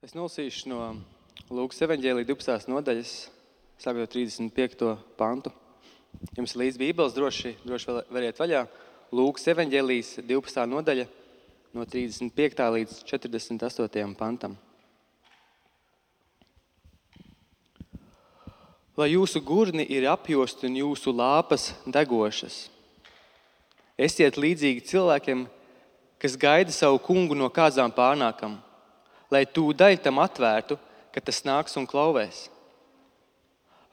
Es nolasīšu no Lūkas evaņģēlija 12. nodaļas, sākot 35. pantu. Jums līdz Bībeles droši variet vaļā. Lūkas evaņģēlijas 12. nodaļa no 35. līdz 48. pantam. Lai jūsu gurni ir apjosti un jūsu lāpas degošas. Esiet līdzīgi cilvēkiem, kas gaida savu kungu no kāzām pārnākam, lai tūdaļ tam atvērtu, ka tas nāks un klauvēs.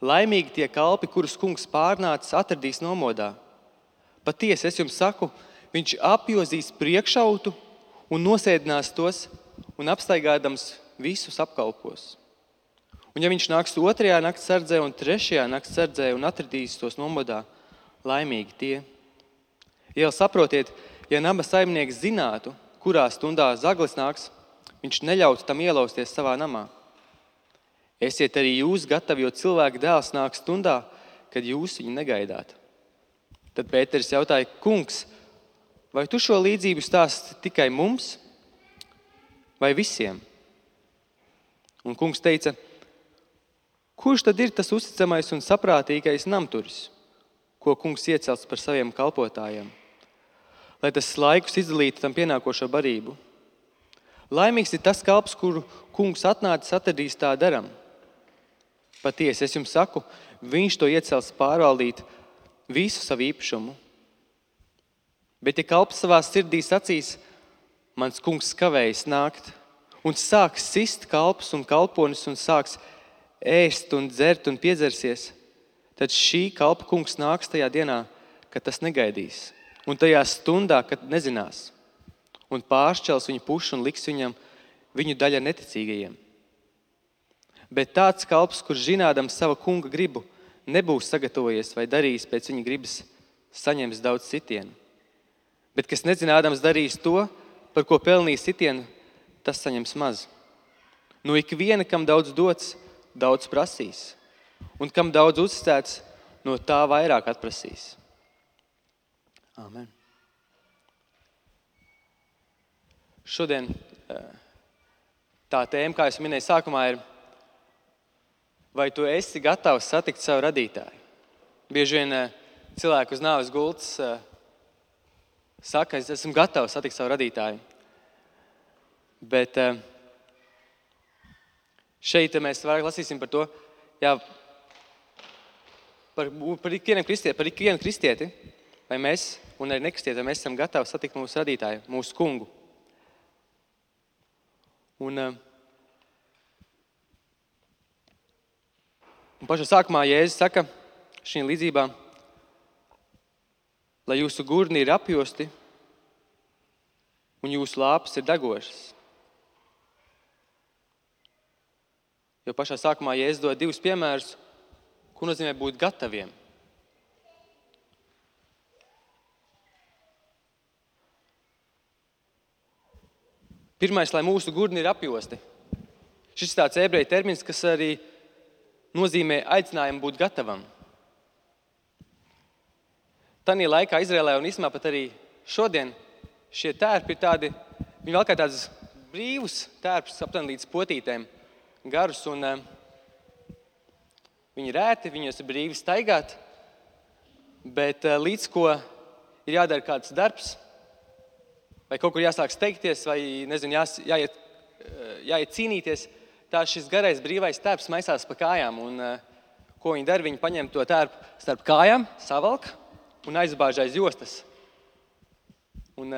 Laimīgi tie kalpi, kurus kungs pārnācis, atradīs nomodā. Patiesi, es jums saku, viņš apjozīs priekšautu un nosēdinās tos un apstaigādams visus apkalpos. Un ja viņš nāks 2. nakts sardzē un 3. nakts sardzē un atradīs tos nomodā, laimīgi tie. Ja saprotiet, ja nama saimnieks zinātu, kurā stundā zaglis nāks, viņš neļautu tam ielausties savā namā. Esiet arī jūs gatavi, jo cilvēka dēls nāk stundā, kad jūs viņu negaidāt. Tad Pēteris jautāja, kungs, vai tu šo līdzību stāsti tikai mums vai visiem? Un kungs teica, kurš tad ir tas uzticamais un saprātīgais namturis, ko kungs iecels par saviem kalpotājiem, lai tas laikus izdalītu tam pienākošo barību? Laimīgs ir tas kalps, kuru kungs atnācis atradīs tā daram. Patiesi, es jums saku, viņš to iecels pārvaldīt visu savu īpašumu. Bet ja kalps savā sirdī sacīs, mans kungs kavējas nākt, un sāks sist kalpus un kalponis un sāks ēst un dzert un piedzersies, tad šī kalpa kungs nāks tajā dienā, kad tas negaidīs, un tajā stundā, kad nezinās, un pāršķels viņu pušu un liks viņu daļa neticīgajiem. Bet tāds kalps, kurš zinādams sava kunga gribu, nebūs sagatavojies vai darījis pēc viņa gribas, saņems daudz sitienu. Bet kas nezinādams darīs to, par ko pelnīs sitienu, tas saņems maz. No ikviena, kam daudz dots, daudz prasīs, un kam daudz uzticēts, no tā vairāk atprasīs. Āmen. Šodien tā tēma, kā es minēju sākumā, ir, vai tu esi gatavs satikt savu radītāju? Bieži vien cilvēki uz nāves gultas saka, es esmu gatavs satikt savu radītāju. Bet šeit mēs vairāk lasīsim par to, par ikvienu kristieti, vai mēs, un arī nekristieti, vai mēs esam gatavi satikt mūsu radītāju, mūsu kungu. Un pašā sākumā Jēzus saka šī līdzībā, lai jūsu gurni ir apjosti un jūsu lāpas ir degošas. Jo pašā sākumā Jēzus dod 2 piemērus, ko nozīmē būt gataviem. Pirmais, lai mūsu gurni ir apjosti. Šis ir tāds ebreju termins, kas arī nozīmē aicinājumu būt gatavam. Tanī laikā Izrēlē un īstenībā pat arī šodien šie tērpi ir tādi, viņi vēl kā tāds brīvus tērpus aptuveni līdz potītēm garus, un viņi rēti, viņos ir brīvi staigāt, bet līdz ko ir jādara kāds darbs, vai kaut kur jāsāk steigties, vai jāiet cīnīties, tā šis garais brīvais tērps maisās pa kājām. Un ko viņi dara? Viņi paņem to tērpu starp kājām, savalk un aizbāž aiz jostas. Un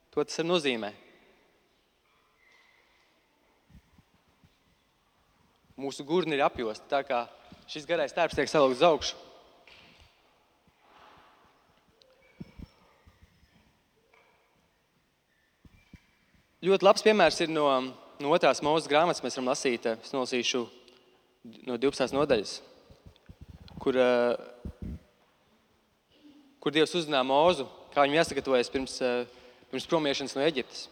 to tas arī nozīmē. Mūsu gurni ir apjosti, tā kā šis garais tērps tiek savalkts uz augšu. Ļoti labs piemērs ir no 2. Mūzes grāmatas, mēs varam lasīt, es nolasīšu no 12. nodaļas, kur Dievs uzrunā Mūzu, kā viņam jāsagatavojas pirms promiešanas no Eģiptes.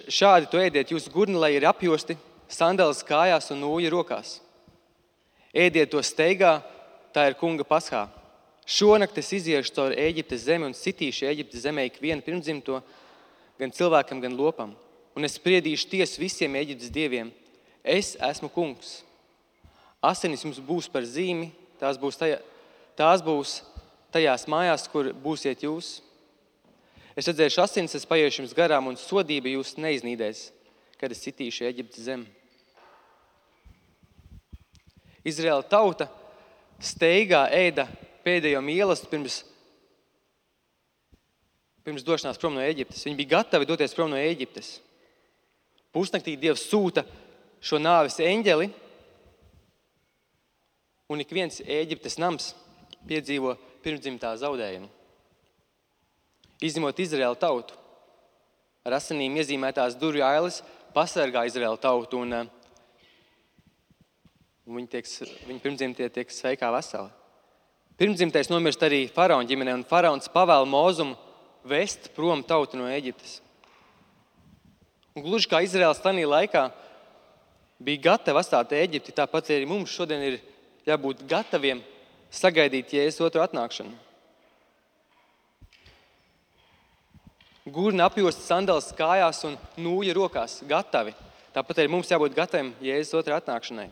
Šādi to ēdiet jūsu gurni, lai ir apjosti, sandalas kājās un nūja rokās. Ēdiet to steigā, tā ir kunga paschā. Šonakt es iziešu cauri Eģiptes zemi un sitīšu Eģiptes zemē ikvienu pirmdzimto, gan cilvēkam, gan lopam. un es spriedīšu tiesu visiem Ēģiptes dieviem. Es esmu kungs. Asinis jums būs par zīmi, tās būs tajās mājās, kur būsiet jūs. Es redzēšu asinis, es paiešu jums garām, un sodība jūs neiznīdēs, kad es sitīšu Ēģiptes zemi. Izraēla tauta steigā ēda pēdējo mīlestību pirms došanās prom no Ēģiptes. Viņi bija gatavi doties prom no Ēģiptes. Pusnaktī Dievs sūta šo nāves eņģeli, un ik viens Ēģiptes nams piedzīvo pirmdzimtā zaudējumu. Izņemot Izraēla tautu. Ar asinīm iezīmētās durvju ailes pasargā Izraēla tautu, un viņi pirmdzimtie tiek sveikā veseli. Pirmdzimtais nomirst arī faraona ģimenē, un faraons pavēl Mozumu vest prom tautu no Ēģiptes. Un gluži kā Izraēls tajā laikā bija gatava atstāt Ēģipti, tāpat arī mums šodien ir jābūt gataviem sagaidīt Jēzus otru atnākšanu. Gurna apjosta sandalas kājās un nūja rokās, gatavi. Tāpat arī mums jābūt gataviem Jēzus otru atnākšanai.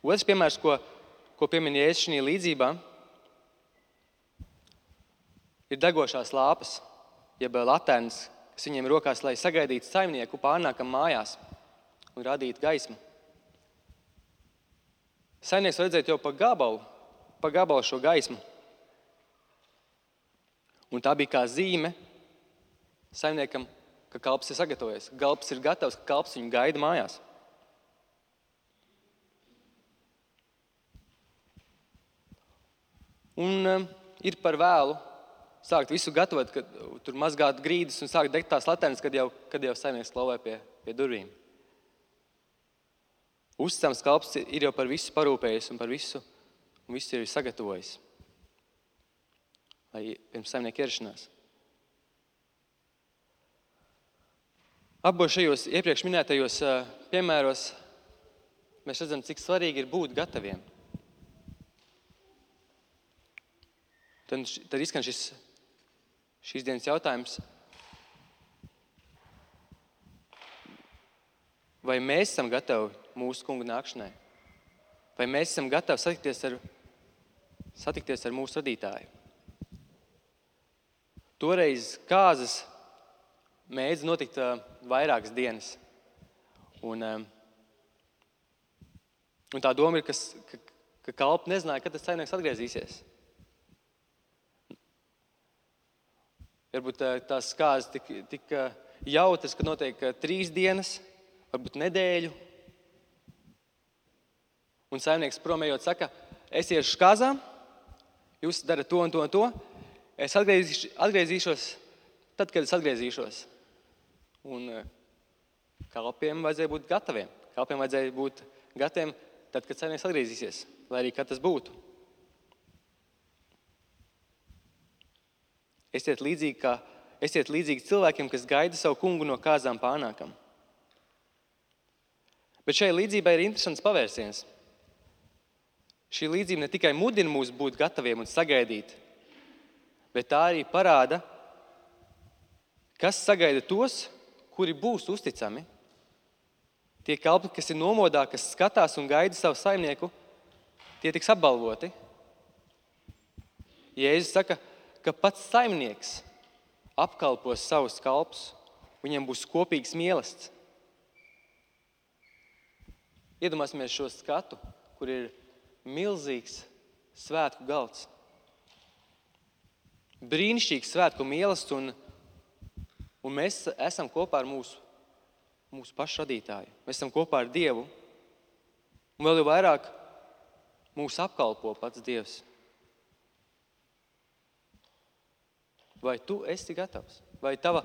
Otrs piemērs, ko piemin Jēzus šajā līdzībā, ir degošās lāpas, jeb latērnas, kas viņiem rokās, lai sagaidītu saimnieku pārnākam mājās un radītu gaismu. Saimnieks var redzēt jau pa gabalu šo gaismu. Un tā bija kā zīme saimniekam, ka kalps ir sagatavojies. Kalps ir gatavs, ka kalps viņu gaida mājās. Un ir par vēlu sākt visu gatavot, kad tur mazgāt grīdas un sākt degt tās latērnas, kad jau saimnieks klauvē pie durvīm. Uzticams kalps ir jau par visu parūpējies un visu ir sagatavojis. Lai pirms saimnieka ierašanās. Abos šajos iepriekš minētajos piemēros mēs redzam, cik svarīgi ir būt gataviem. Tad izskan šīs dienas jautājums. Vai mēs esam gatavi mūsu kunga nākšanai? Vai mēs esam gatavi satikties ar mūsu radītāju? Toreiz kāzas mēdz notikt vairākas dienas. Un tā doma ir, ka kalpi nezināja, kad tas saimnieks atgriezīsies. Varbūt tās kāzas tik jautras, ka notiek 3 dienas, varbūt nedēļu. Un saimnieks promējot saka, es iešu kāzām, jūs darat to un to un to, es atgriezīšos tad, kad es atgriezīšos. Un kalpiem vajadzēja būt gataviem. Kalpiem vajadzēja būt gataviem tad, kad saimnieks atgriezīsies, lai arī kad tas būtu. Esiet līdzīgi cilvēkiem, kas gaida savu kungu no kāzām pārnākam. Bet šai līdzībai ir interesants pavērsiens. Šī līdzība ne tikai mudina mūs būt gataviem un sagaidīt, bet tā arī parāda, kas sagaida tos, kuri būs uzticami. Tie kalpi, kas ir nomodā, kas skatās un gaida savu saimnieku, tie tiks apbalvoti. Jēzus saka, ka pats saimnieks apkalpos savus kalpus, viņam būs kopīgs mīlestība. Iedomāsimies šo skatu, kur ir milzīgs svētku galds. Brīnišķīgs svētku mīlestība, un mēs esam kopā ar mūsu pašu radītāju. Mēs esam kopā ar Dievu. Un vēl jau vairāk mūs apkalpo pats Dievs. Vai tu esi gatavs? Vai tava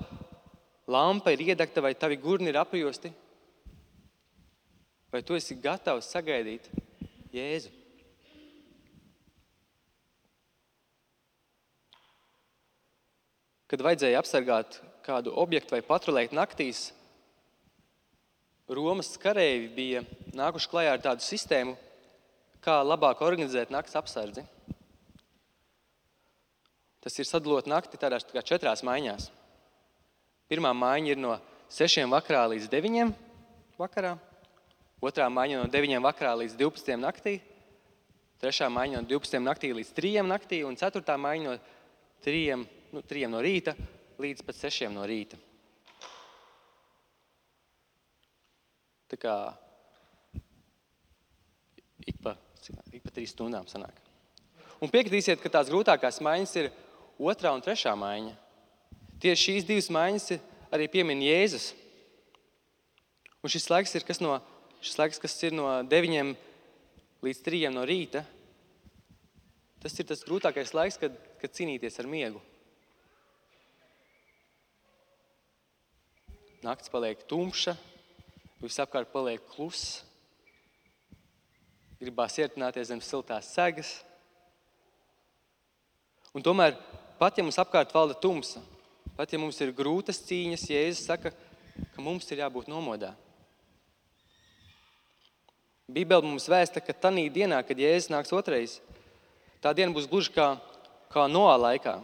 lampa ir iedegta, vai tavi gurni ir apjosti? Vai tu esi gatavs sagaidīt Jēzu? Kad vajadzēja apsargāt kādu objektu vai patrulēt naktīs, Romas kareivji bija nākuši klajā ar tādu sistēmu, kā labāk organizēt nakts apsardzi. Tas ir sadalot nakti tādās kā 4 maiņās. Pirmā maiņa ir no 6 vakarā līdz 9 vakarā, otrā maiņa no 9 vakarā līdz 12 naktī, trešā maiņa no 12 naktī līdz 3 naktī un ceturtā maiņa no 3 no rīta līdz pat 6 no rīta. Tā kā ik pa 3 stundām sanāk. Un piekritīsiet, ka tās grūtākās maiņas ir 2. un 3. maiņa. Tieši šīs 2 maiņas arī piemin Jēzus. Un šis laiks, kas ir no 9 līdz 3 no rīta, tas ir tas grūtākais laiks, kad cīnīties ar miegu. Nakts paliek tumša, visapkārt paliek kluss, gribās iertināties zem siltās segas. Un tomēr, pat ja mums apkārt valda tumsa, pat ja mums ir grūtas cīņas, Jēzus saka, ka mums ir jābūt nomodā. Bībele mums vēsta, ka tanī dienā, kad Jēzus nāks otrais, tā diena būs gluži kā Noā laikā,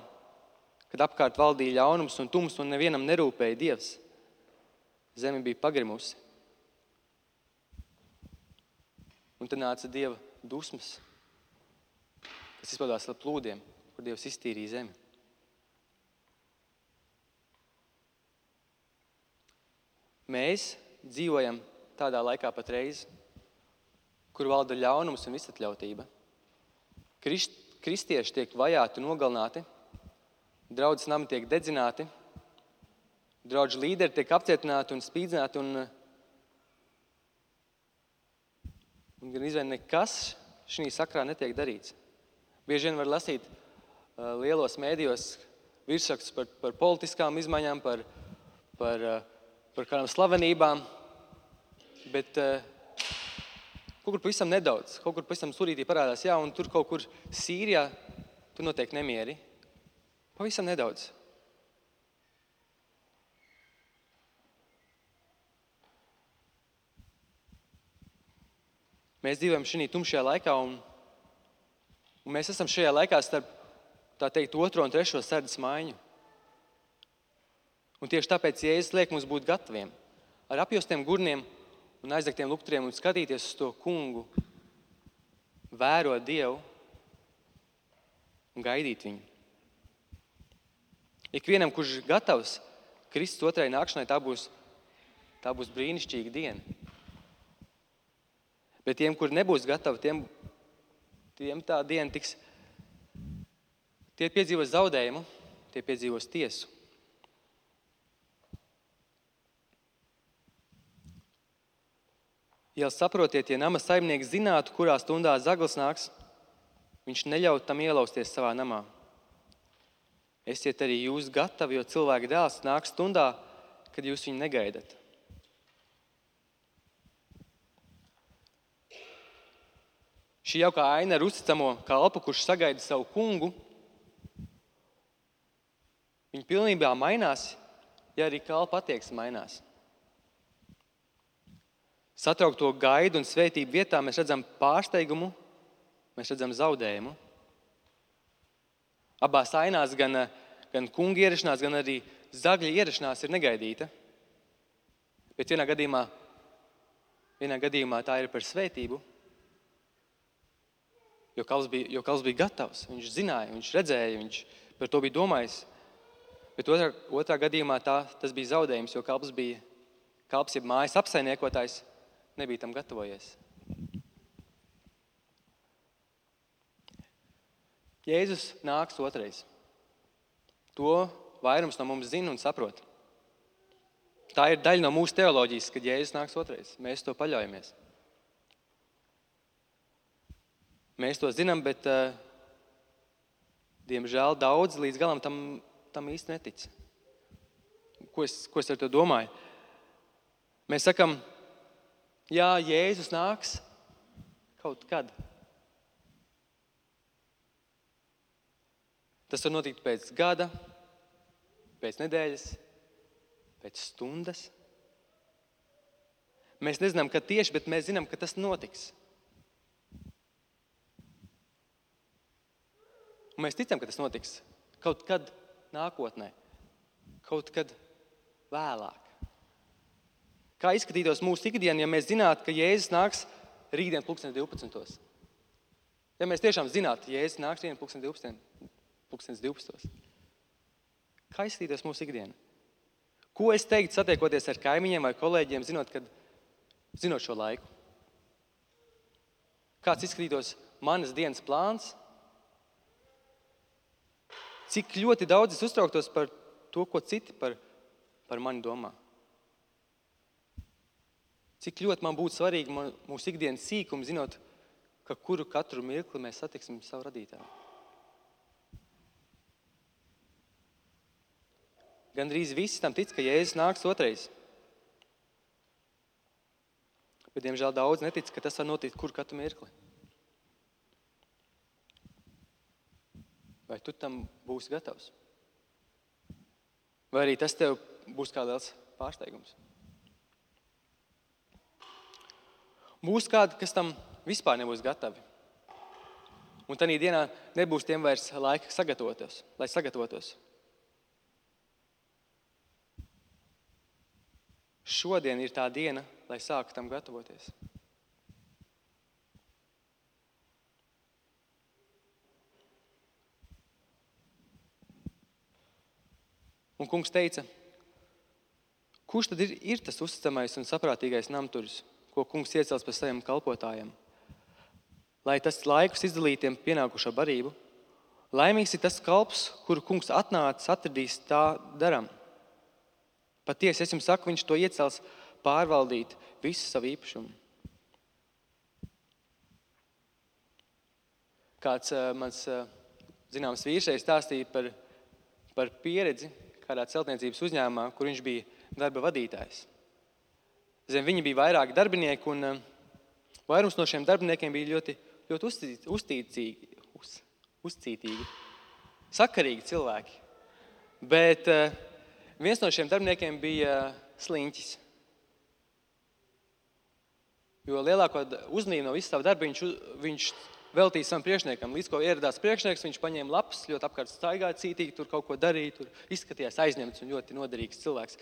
kad apkārt valdīja ļaunums un tums un nevienam nerūpēja Dievs. Zeme bija pagrimusi. Un tad nāca Dieva dusmas, kas izpaudās ar plūdiem, kur Dievs iztīrīja zemi. Mēs dzīvojam tādā laikā patreiz, kur valda ļaunums un visatļautība. Kristieši tiek vajāti un nogalināti, draudzes nami tiek dedzināti, draugu līderi tiek apcietināti un spīdzināti, un gan izvēl nekas šī sakrā netiek darīts. Bieži vien var lasīt lielos mēdījos virsrakstus par politiskām izmaiņām, par kādām slavenībām, bet kaut kur pavisam nedaudz, kaut kur pavisam surītī parādās, jā, un tur kaut kur Sīrijā, tur notiek nemieri. Pavisam nedaudz. Mēs dzīvojam šī tumšajā laikā, un mēs esam šajā laikā starp, tā teikt, 2. un 3. sardzes maiņu. Un tieši tāpēc Jēzus liek mums būt gataviem, ar apjostiem gurniem un aizdegtiem lukturiem un skatīties uz to kungu, vērot Dievu un gaidīt viņu. Ikvienam, kurš gatavs Kristus otrai nākšanai, tā būs brīnišķīga diena. Bet tiem, kur nebūs gatavi, tiem tā diena tiks. Tie piedzīvos zaudējumu, tie piedzīvos tiesu. Ja saprotiet, ja nama saimnieks zinātu, kurā stundā zaglis nāks, viņš neļautu tam ielausties savā namā. Esiet arī jūs gatavi, jo cilvēka dēls nāk stundā, kad jūs viņu negaidat. Šī jaukā aina ar uzticamo kalpu, kurš sagaida savu kungu, viņa pilnībā mainās, ja arī kalpa attieksme mainās. Satraukto gaidu un svētību vietā mēs redzam pārsteigumu, mēs redzam zaudējumu. Abās ainās gan kunga ierašanās, gan arī zagļa ierašanās ir negaidīta. Bet vienā gadījumā tā ir par svētību, jo kalps bija gatavs, viņš zināja, viņš redzēja, viņš par to bija domājis. Bet otrā gadījumā tas bija zaudējums, jo kalps jeb mājas apsaimniekotājs nebija tam gatavojies. Jēzus nāks otrais. To vairums no mums zina un saprot. Tā ir daļa no mūsu teoloģijas, kad Jēzus nāks otrais. Mēs to paļaujamies. Mēs to zinām, bet diemžēl daudz līdz galam tam īsti netic. Ko es ar to domāju? Mēs sakam, jā, Jēzus nāks kaut kad. Tas var notikt pēc gada, pēc nedēļas, pēc stundas. Mēs nezinām, kad tieši, bet mēs zinām, ka tas notiks. Un mēs ticam, ka tas notiks kaut kad nākotnē, kaut kad vēlāk. Kā izskatītos mūsu ikdiena, ja mēs zinātu, ka Jēzus nāks rītdien 12. Ja mēs tiešām zinātu, Jēzus nāks rītdien 12. Kā izskatītos mūsu ikdiena? Ko es teiktu satiekoties ar kaimiņiem vai kolēģiem, zinot šo laiku? Kāds izskatītos manas dienas plāns? Cik ļoti daudz es uztrauktos par to, ko citi par mani domā? Cik ļoti man būtu svarīgi mūsu ikdienas sīkumi, zinot, ka katru mirkli mēs satiksim savu radītāju. Gandrīz visi tam tic, ka Jēzus nāks otrais. Bet, diemžēl, daudz netic, ka tas var notikt katru mirkli. Vai tu tam būsi gatavs? Vai arī tas tev būs kā liels pārsteigums? Būs kādi, kas tam vispār nebūs gatavi. Un tajā dienā nebūs tiem vairs laika lai sagatavotos. Šodien ir tā diena, lai sāktu tam gatavoties. Un kungs teica, kurš tad ir tas uzticamais un saprātīgais namturis, ko kungs iecels par saviem kalpotājiem, lai tas laikus izdalītiem pienākušo barību? Laimīgs ir tas kalps, kuru kungs atradīs tā daram. Patiesi, es jums saku, viņš to iecels pārvaldīt visu savu īpašumu. Kāds mans zināms vīršais stāstīja par pieredzi kādā celtniecības uzņēmumā, kur viņš bija darba vadītājs. Zem viņa bija vairāki darbinieki, un vairums no šiem darbiniekiem bija ļoti, ļoti uzcītīgi, sakarīgi cilvēki. Bet viens no šiem darbiniekiem bija sliņķis. Jo lielāko uzmanību no visu savu darbu viņš veltīja savam priekšniekam. Līdz ko ieradās priekšnieks, viņš paņēma lapas, ļoti apkārt staigāja, cītīgi, tur kaut ko darīja, tur izskatījās aizņemts un ļoti noderīgs cilvēks.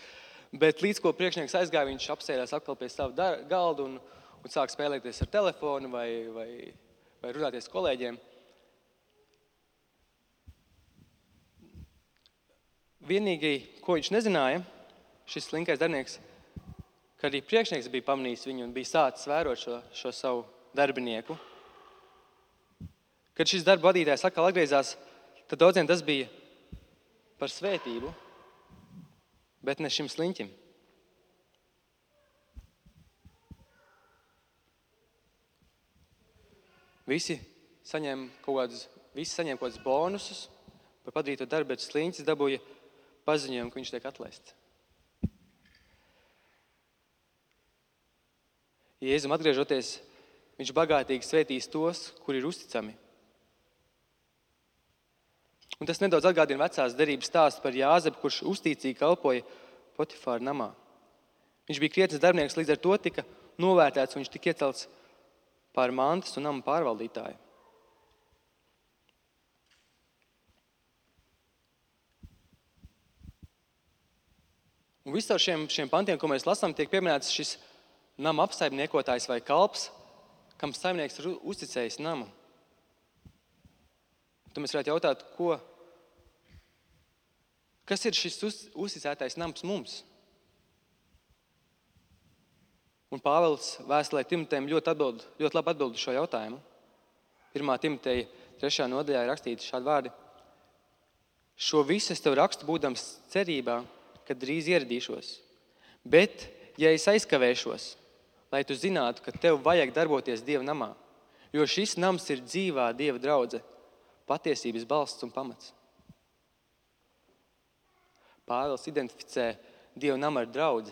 Bet līdz ko priekšnieks aizgāja, viņš apsēdās atkal pie savu galdu un sāk spēlēties ar telefonu vai runāties kolēģiem. Vienīgi, ko viņš nezināja, šis slinkais darbinieks, ka arī priekšnieks bija pamanījis viņu un bija sācis vērot šo savu darbinieku. Kad šis darba vadītājs atkal atgriezās, tad daudziem tas bija par svētību, bet ne šim sliņķim. Visi saņēma kaut kādus bonusus par padarīto darbu, bet sliņķis dabūja paziņojumu, ka viņš tiek atlaists. Jēzum atgriežoties, viņš bagātīgi svētīs tos, kuri ir uzticami. Un tas nedaudz atgādina vecās derības stāstu par Jāzepu, kurš uzticīgi kalpoja Potifāra namā. Viņš bija krietns darbinieks, līdz ar to tika novērtēts, un viņš tika iecelts pār mantas un nama pārvaldītāju. Un visā šiem pantiem, ko mēs lasām, tiek pieminēts šis nama apsaimniekotājs vai kalps, kam saimnieks ir uzticējis namu. Tad mēs varētu jautāt, kas ir šis uzticētais nams mums? Un Pāvils vēstulē Timotejam ļoti labi atbild šo jautājumu. 1. Timoteja 3. nodaļā ir rakstīti šādi vārdi. Šo visu es tev rakstu būdams cerībā, kad drīz ieradīšos. Bet, ja es aizkavēšos, lai tu zinātu, ka tev vajag darboties Dieva namā, jo šis nams ir dzīvā Dieva draudze, patiesības balsts un pamats. Pāvils identificē Dieva namu ar draudzi.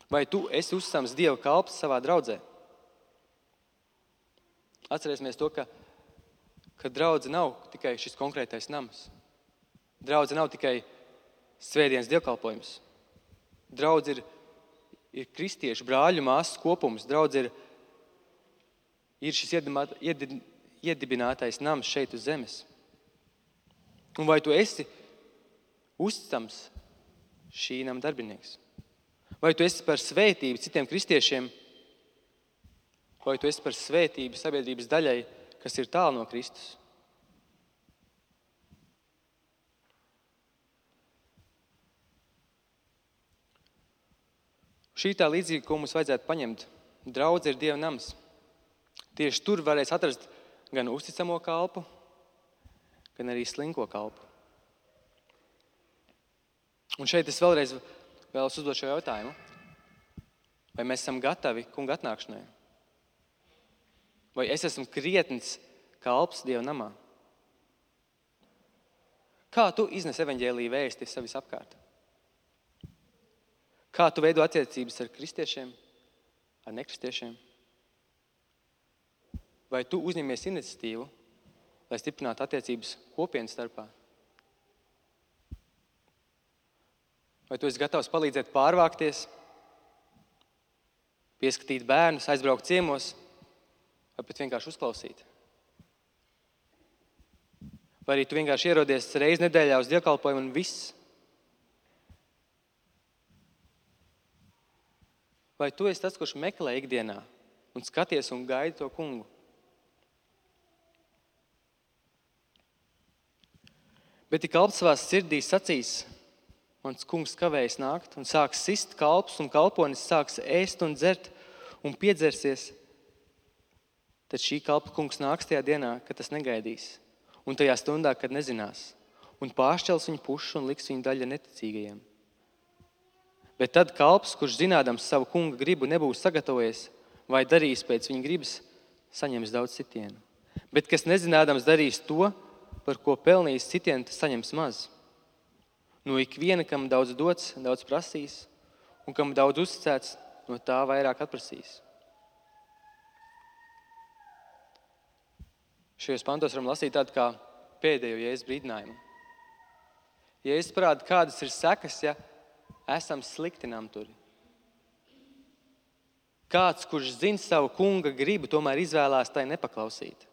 Vai tu esi uzticams Dieva kalps savā draudzē? Atcerēsimies to, ka draudze nav tikai šis konkrētais nams. Draudze nav tikai svētdienas dievkalpojums. Draudze ir kristiešu brāļu māsas kopums. Draudze ir šis iedibinātais nams šeit uz zemes. Un vai tu esi uzticams šī nama darbinieks? Vai tu esi par svētību citiem kristiešiem, vai tu esi par svētību sabiedrības daļai, kas ir tālu no Kristus? Šī tā līdzīga, ko mums vajadzētu paņemt. Draudze ir Dieva nams. Tieši tur varēs atrast gan uzticamo kalpu, gan arī slinko kalpu. Un šeit es vēlreiz vēlos uzdot šo jautājumu. Vai mēs esam gatavi kunga atnākšanai? Vai es esmu krietns kalps Dieva namā? Kā tu iznes evaņģēlija vēsti sevis apkārt? Kā tu veido attiecības ar kristiešiem, ar nekristiešiem? Vai tu uzņemies iniciatīvu, lai stiprinātu attiecības kopienas starpā? Vai tu esi gatavs palīdzēt pārvākties, pieskatīt bērnus, aizbraukt ciemos, vai pat vienkārši uzklausīt? Vai arī tu vienkārši ierodies reizi nedēļā uz dievkalpojumu un viss? Vai tu esi tas, kurš meklē ikdienā un skaties un gaidi to kungu? Bet ja kalps savās sirdīs sacīs, mans kungs kavējas nākt, un sāks sist kalps un kalponis sāks ēst un dzert un piedzersies, tad šī kalpa kungs nāks tajā dienā, kad tas negaidīs, un tajā stundā, kad nezinās, un pāršķels viņu pušu un liks viņu daļa neticīgajiem. Bet tad kalps, kurš zinādams savu kunga gribu nebūs sagatavojies vai darīs pēc viņa gribas, saņems daudz sitienu. Bet kas nezinādams darīs to, par ko pelnījis sitienu, tas saņems maz. No ikviena, kam daudz dots, daudz prasīs, un kam daudz uzticēts, no tā vairāk atprasīs. Šajos pantos varam lasīt tādu kā pēdējo Jēzus brīdinājumu. Jēzus parāda, kādas ir sekas, ja esam slikti namturi. Kāds, kurš zina savu kunga gribu, tomēr izvēlās tai nepaklausīt.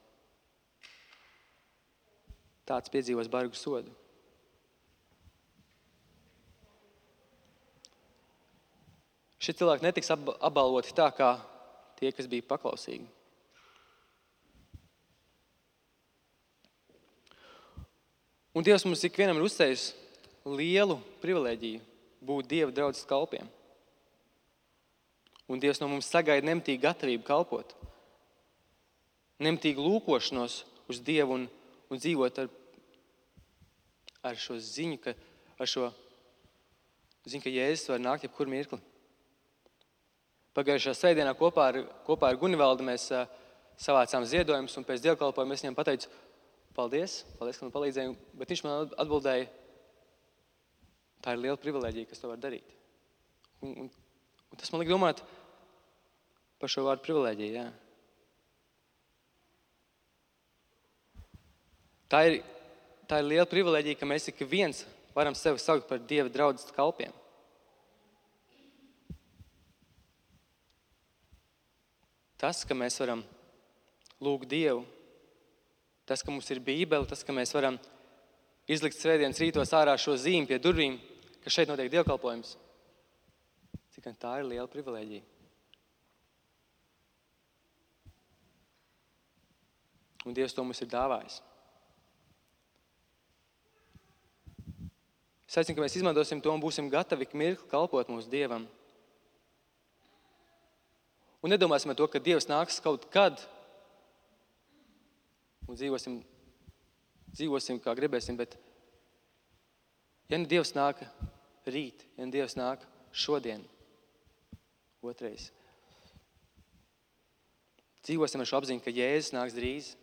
Tāds piedzīvos bargu sodu. Šie cilvēki netiks apbalvoti tā, kā tie, kas bija paklausīgi. Un Dievs mums ikvienam ir uzstājis lielu privilēģiju būt Dieva draudzes kalpiem. Un Dievs no mums sagaida nemitīgu gatavību kalpot. Nemitīgu lūkošanos uz Dievu un dzīvot ar šo ziņu, ka Jēzus var nākt jebkur mirkli. Pagājušā svētdienā kopā ar Gunivaldu mēs savācām ziedojumus, un pēc dievkalpojuma es viņam pateicu, paldies, ka man palīdzēja, bet viņš man atbildēja, tā ir liela privilēģija, kas to var darīt. Un tas man liek domāt par šo vārdu privilēģiju, jā. Tā ir liela privilēģija, ka mēs ik viens varam sevi saukt par Dieva draudzes kalpiem. Tas, ka mēs varam lūgt Dievu, tas, ka mums ir Bībele, tas, ka mēs varam izlikt svētdienas rītos ārā šo zīmi pie durvīm, ka šeit notiek dievkalpojums. Cik tā ir liela privilēģija. Un Dievs to mums ir dāvājis. Es aicinu, ka mēs izmantosim to un būsim gatavi ik mirkli kalpot mūsu Dievam. Un nedomāsim ar to, ka Dievs nāks kaut kad un dzīvosim kā gribēsim, bet ja ne Dievs nāk rīt, ja ne Dievs nāk šodien, otrais, dzīvosim ar šo apziņu, ka Jēzus nāks drīz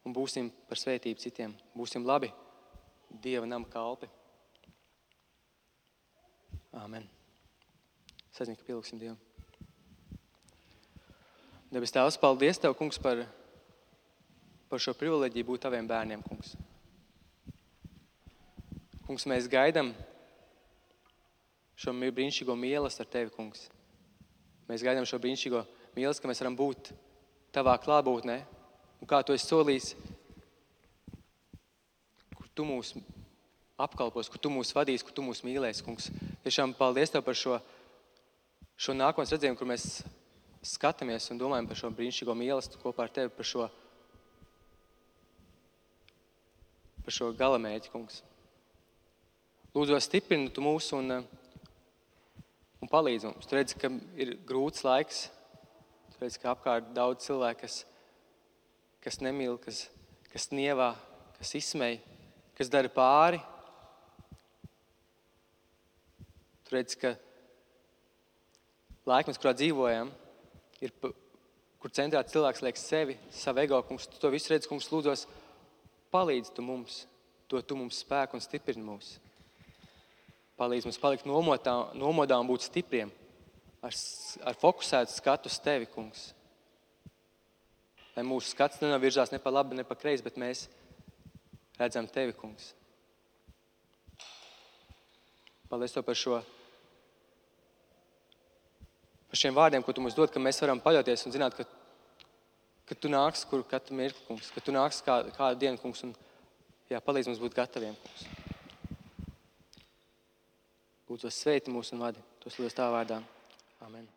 un būsim par svētību citiem, būsim labi Dieva nama kalpi. Āmen. Es aizinu, ka pielūksim Dievu. Debes Tēvs, paldies Tev, kungs, par šo privileģiju būt Taviem bērniem, kungs. Kungs, mēs gaidam šo brīnišķīgo mīlestību ar Tevi, kungs. Mēs gaidām šo brīnišķīgo mīlestību, ka mēs varam būt Tavā klātbūtnē. Un kā Tu esi solījis, kur Tu mūs apkalpos, kur Tu mūs vadīs, kur Tu mūs mīlēsi, kungs. Tiešām paldies Tev par šo šo nākotnes redzējumu, kur mēs skatāmies un domājam par šo brīnišķīgo mīlestību kopā ar Tevi, par šo galamērķi, kungs. Lūdzos, stiprini Tu mūs un palīdzi mums. Tu redzi, ka ir grūts laiks. Tu redzi, ka apkārt daudz cilvēku, kas nemīl, kas nievā, kas izsmej, kas dara pāri. Tu redzi, ka laikmets, kurā dzīvojam, ir, kur centrā cilvēks liek sevi, savu ego, kungs. Tu to visu redzi, kungs, lūdzos, palīdzi Tu mums, dod Tu mums spēku un stiprini mūs. Palīdzi mums palikt nomodā un būt stipriem, ar fokusētu skatu uz Tevi, kungs. Lai mūsu skats nenovirzās ne pa labi, ne pa kreisi, bet mēs redzam Tevi, kungs. Paldies Tev par šiem vārdiem, ko Tu mums dod, ka mēs varam paļauties un zināt, ka Tu nāks katru mirkli, kungs, ka Tu nāks kādu dienu, kungs, un palīdz mums būt gataviem, kungs. Lūdzu, sveiti mūs un vadi. Tos lūdzu Tavā vārdā. Amen.